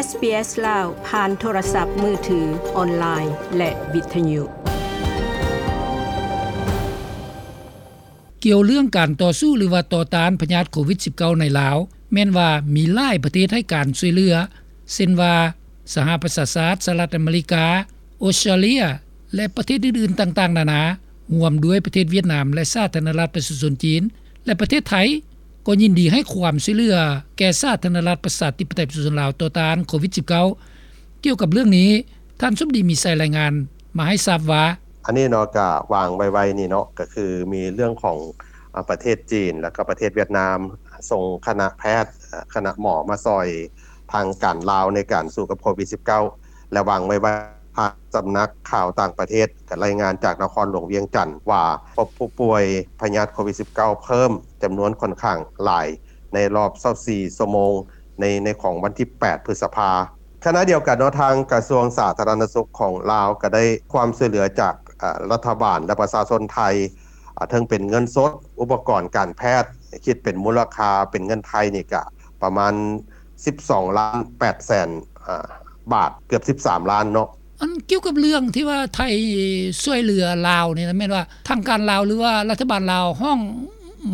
ເອສບີເອສລາວ ຜ່ານໂທລະສັບມືຖື, ອອນລາຍ ແລະ ວິທະຍຸ. ກ່ຽວເລື່ອງການຕໍ່ສູ້ ຫຼືວ່າຕໍ່ຕ້ານພະຍາດໂຄວິດສິບເກົ້າໃນລາວ, ແມ່ນວ່າມີຫຼາຍປະເທດໃຫ້ການຊ່ວຍເຫຼືອ ເຊັ່ນວ່າ ສະຫະປະຊາຊາດ, ສະຫະລັດອາເມລິກາ, ອົດສະຕຣາເລຍ ແລະ ປະເທດອື່ນໆຕ່າງໆນານາ, ຮ່ວມດ້ວຍປະເທດຫວຽດນາມ ແລະ ສາທາລະນະລັດປະຊາຊົນຈີນ ແລະ ປະເທດໄທ ກໍຍິນດີໃຫ້ຄວາມຊ່ວຍເຫຼືອແກ່ສາທາລະນະລັດປະຊາທິປະໄຕປະຊາຊົນລາວຕໍ່ຕ້ານໂຄວິດສິບເກົ້າ. ກ່ຽວກັບເລື່ອງນີ້, ທ່ານສົມດີ ມີໄຊ ລາຍງານມາໃຫ້ຊາບວ່າ, ອັນນີ້ເນາະ ກະວາງໄວໆນີ້ເນາະ ກະຄືມີເລື່ອງຂອງ ອາ ປະເທດຈີນ ແລ້ວກໍປະເທດຫວຽດນາມ ສົ່ງຄະນະແພດ ຄະນະໝໍມາຊ່ອຍທາງການລາວໃນການສູ້ກັບໂຄວິດສິບເກົ້າ ແລະ ວາງໄວ້ວ່າ ທາງສຳນັກຂ່າວຕ່າງປະເທດກໍລາຍງານຈາກນະຄອນຫຼວງວຽງຈັນວ່າ ພົບຜູ້ປ່ວຍພະຍາດໂຄວິດສິບເກົ້າເພີ່ມຈຳນວນຂ້ອນຂ້າງຫຼາຍໃນລອບຊາວສີ່ຊົ່ວໂມງ ໃນ ໃນຂອງວັນທີແປດ ພຶດສະພາ. ຂະນະດຽວກັນເນາະ ທາງກະຊວງສາທາລະນະສຸກຂອງລາວກໍໄດ້ຄວາມຊ່ວຍເຫຼືອຈາກ ອາ ລັດຖະບານ ແລະ ປະຊາຊົນໄທ ອາ ເຖິງເປັນເງິນສົດ, ອຸປະກອນການແພດ, ຄິດເປັນມູນລະຄ່າເປັນເງິນໄທນີ້ກະປະມານສິບສອງລ້ານແປດແສນ ອາ ບາດ, ເກືອບສິບສາມລ້ານເນາະ. ອັນກ່ຽວກັບເລື່ອງທີ່ວ່າໄທຊ່ວຍເຫຼືອລາວນີ້ນະ ແມ່ນວ່າທາງການລາວ ຫຼືວ່າລັດຖະບານລາວຮ້ອງ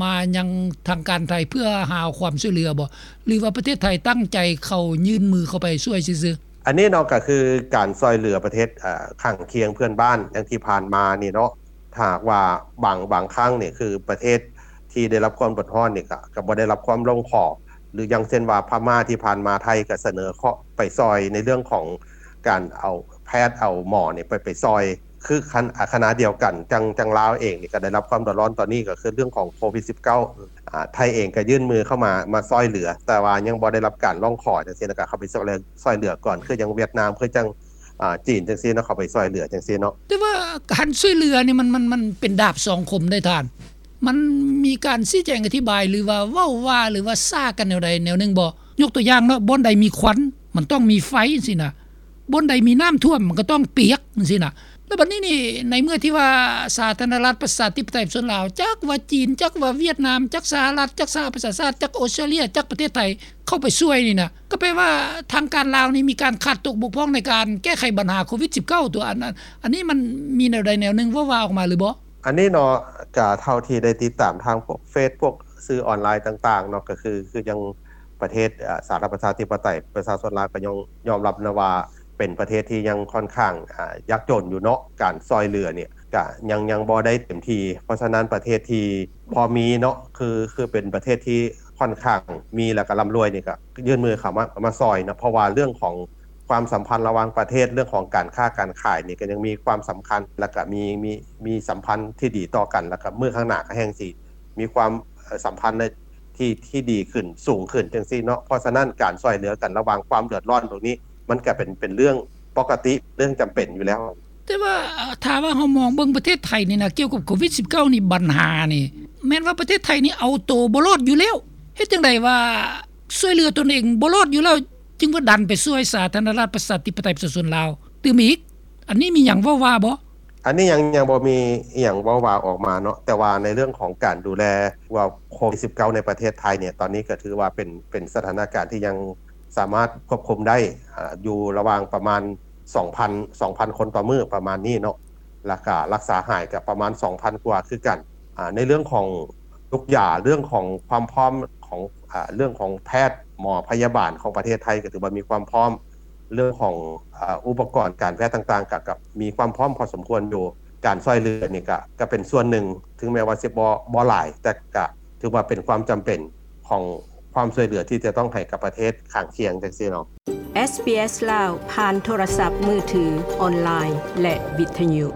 ມາຍັງທາງການໄທເພື່ອຫາຄວາມຊ່ວຍເຫຼືອບໍ່ ຫຼືວ່າປະເທດໄທຕັ້ງໃຈເຂົ້າ ຍື່ນມືເຂົ້າໄປຊ່ວຍຊື່ໆ? ອັນນີ້ເນາະ ກໍຄືການຊ່ອຍເຫຼືອປະເທດ ອາ ຂ້າງຄຽງເພື່ອນບ້ານ ຢ່າງທີ່ຜ່ານມານີ້ເນາະ ຖ້າຫາກວ່າບາງ ບາງຄັ້ງນີ້ ຄືປະເທດທີ່ໄດ້ຮັບຄວາມເດືອດຮ້ອນນີ້ ກໍ ກໍບໍ່ໄດ້ຮັບຄວາມຮ້ອງຂໍ ຫຼືຢ່າງເຊັ່ນວ່າພະມ້າທີ່ຜ່ານມາ ໄທກໍສະເໜີເຄາະໄປຊ່ອຍໃນເລື່ອງຂອງການເອົາແພດ ເອົາໝໍນີ້ໄປ ໄປຊ່ອຍ ຄືຂະນະ ອາ ຂະນະດຽວກັນ ຈັ່ງ ຈັ່ງລາວເອງນີ້ກໍໄດ້ຮັບຄວາມເດືອດຮ້ອນຕອນນີ້ ກໍຄືເລື່ອງຂອງໂຄວິດສິບເກົ້າ ອາ ໄທເອງກໍຍື່ນມືເຂົ້າມາ ມາຊ່ອຍເຫຼືອ ແຕ່ວ່າຍັງບໍ່ໄດ້ຮັບການຮ້ອງຂໍຈັ່ງຊີ້ນະ ກໍເຂົ້າໄປຊ່ອຍເຫຼືອ ຊ່ອຍເຫຼືອກ່ອນ ຄືຈັ່ງຫວຽດນາມ ຄືຈັ່ງ ອາ ຈີນຈັ່ງຊີ້ເນາະ ເຂົ້າໄປຊ່ອຍເຫຼືອຈັ່ງຊີ້ເນາະ. ແຕ່ວ່າການຊ່ວຍເຫຼືອນີ້ມັນ ມັນ ມັນເປັນດາບສອງຄົມໄດ໋ທ່ານ. ມັນມີການຊີ້ແຈງອະທິບາຍ ຫຼືວ່າເວົ້າວ່າ ຫຼືວ່າສາກັນແນວໃດແນວໜຶ່ງບໍ່? ຍົກຕົວຢ່າງເນາະ ບ່ອນໃດມີຄວັນ ມັນຕ້ອງມີໄຟຈັ່ງຊີ້ນະ, ບ່ອນໃດມີນ້ຳຖ້ວມ ມັນກໍຕ້ອງປຽກຈັ່ງຊີ້ນະ. ແລ້ວບັດນີ້ນີ້ ໃນເມື່ອທີ່ວ່າສາທາລະນະລັດປະຊາທິປະໄຕປະຊາຊົນລາວ ຈັກວ່າຈີນ ຈັກວ່າຫວຽດນາມ ຈັກສະຫະລັດ ຈັກສະຫະປະຊາຊາດ ຈັກອົດສະຕຣາເລຍ ຈັກປະເທດໄທ ເຂົ້າໄປຊ່ວຍນີ້ນະ ກໍແປວ່າທາງການລາວນີ້ມີການຂາດຕົກບົກຜ່ອງໃນການແກ້ໄຂບັນຫາໂຄວິດສິບເກົ້າ ຕົວະ ອັນ ອັນ ອັນນີ້ມັນມີແນວໃດແນວໜຶ່ງເວົ້າວ່າອອກມາຫຼືບໍ່? ອັນນີ້ເນາະ ກະເທົ່າທີ່ໄດ້ຕິດຕາມທາງພວກເຟສ ພວກສື່ອອນລາຍຕ່າງໆເນາະ ກະຄື ຄືຈັ່ງປະເທດ ອາ ສາທາລະນະລັດປະຊາທິປະໄຕປະຊາຊົນລາວ ກະຍອມ ຍອມຮັບນະວ່າເປັນປະເທດທີ່ຍັງຂ້ອນຂ້າງ ອາ ຍາກຈົນຢູ່ເນາະ ການຊ່ອຍເຫຼືອນີ້ ກະຍັງ ຍັງບໍ່ໄດ້ເຕັມທີ່. ເພາະສະນັ້ນປະເທດທີ່ພໍມີເນາະ ຄື ຄືເປັນປະເທດທີ່ຂ້ອນຂ້າງມີ ແລ້ວກະລ່ຳລວຍນີ້ ກະຍື່ນມືເຂົ້າມາ ມາຊ່ອຍເນາະ. ເພາະວ່າເລື່ອງຂອງຄວາມສຳພັນລະຫວ່າງປະເທດ ເລື່ອງຂອງການຄ້າການຂາຍນີ້ ກະຍັງມີຄວາມສຳຄັນ ແລ້ວກະມີ ມີ ມີສຳພັນທີ່ດີຕໍ່ກັນ ແລ້ວກະມື້ຂ້າງໜ້າກະແຮ່ງຊິມີຄວາມ ເອີ ສຳພັນທີ່ ທີ່ດີຂຶ້ນ ສູງຂຶ້ນຈັ່ງຊີ້ເນາະ. ເພາະສະນັ້ນການຊ່ອຍເຫຼືອກັນລະຫວ່າງຄວາມເດືອດຮ້ອນຕົງນີ້ ມັນກະເປັນ ເປັນເລື່ອງປົກກະຕິ ເລື່ອງຈຳເປັນຢູ່ແລ້ວ. ແຕ່ວ່າ ເອີ ຖ້າວ່າເຮົາມອງເບິ່ງປະເທດໄທນີ້ນະ ກ່ຽວກັບໂຄວິດສິບເກົ້ານີ້ ບັນຫານີ້ ແມ່ນວ່າປະເທດໄທນີ້ເອົາໂຕບໍ່ລອດຢູ່ແລ້ວ. ເຮັດຈັ່ງໃດວ່າຊ່ວຍເຫຼືອຕົນເອງບໍ່ລອດຢູ່ແລ້ວ ຈຶ່ງວ່າດັນໄປຊ່ວຍສາທາລະນະລັດປະຊາທິປະໄຕປະຊາຊົນລາວຕື່ມອີກ? ອັນນີ້ມີຫຍັງເວົ້າວ່າບໍ່? ອັນນີ້ຍັງ ຍັງບໍ່ມີອີ່ຫຍັງເວົ້າວ່າອອກມາເນາະ. ແຕ່ວ່າໃນເລື່ອງຂອງການດູແລວ່າໂຄວິດສິບເກົ້າໃນປະເທດໄທນີ້ ຕອນນີ້ກໍຖືວ່າເປັນ ເປັນສະຖານະການທີ່ຍັງສາມາດຄວບຄຸມໄດ້ ອາ ຢູ່ລະຫວ່າງປະມານສອງພັນ ສອງພັນຄົນຕໍ່ມື້ປະມານນີ້ເນາະ. ແລ້ວກະລັກສາຫາຍກະປະມານສອງພັນກວ່າຄືກັນ. ອາ ໃນເລື່ອງຂອງ ທຸກຢ່າງ ເລື່ອງຂອງຄວາມພ້ອມຂອງ ອາ ເລື່ອງຂອງແພດ ໝໍ ພະຍາບານຂອງປະເທດໄທກໍຖືວ່າມີຄວາມພ້ອມ, ເລື່ອງຂອງ ອາ ອຸປະກອນການແພດຕ່າງໆ ກໍ ກໍມີຄວາມພ້ອມພໍສົມຄວນຢູ່. ການຊ່ອຍເຫຼືອນີ້ກໍ ກໍເປັນສ່ວນໜຶ່ງ ເຖິງແມ່ນວ່າຊິບໍ່ ບໍ່ຫຼາຍ ແຕ່ກໍຖືວ່າເປັນຄວາມຈຳເປັນຂອງຄວາມຊ່ວຍເຫຼືອທີ່ຈະຕ້ອງໃຫ້ກັບປະເທດຂ້າງຄຽງຈັ່ງຊີ້ເນາະ. ເອສບີເອສລາວ ຜ່ານໂທລະສັບມືຖື, ອອນລາຍ ແລະ ວິທະຍຸ.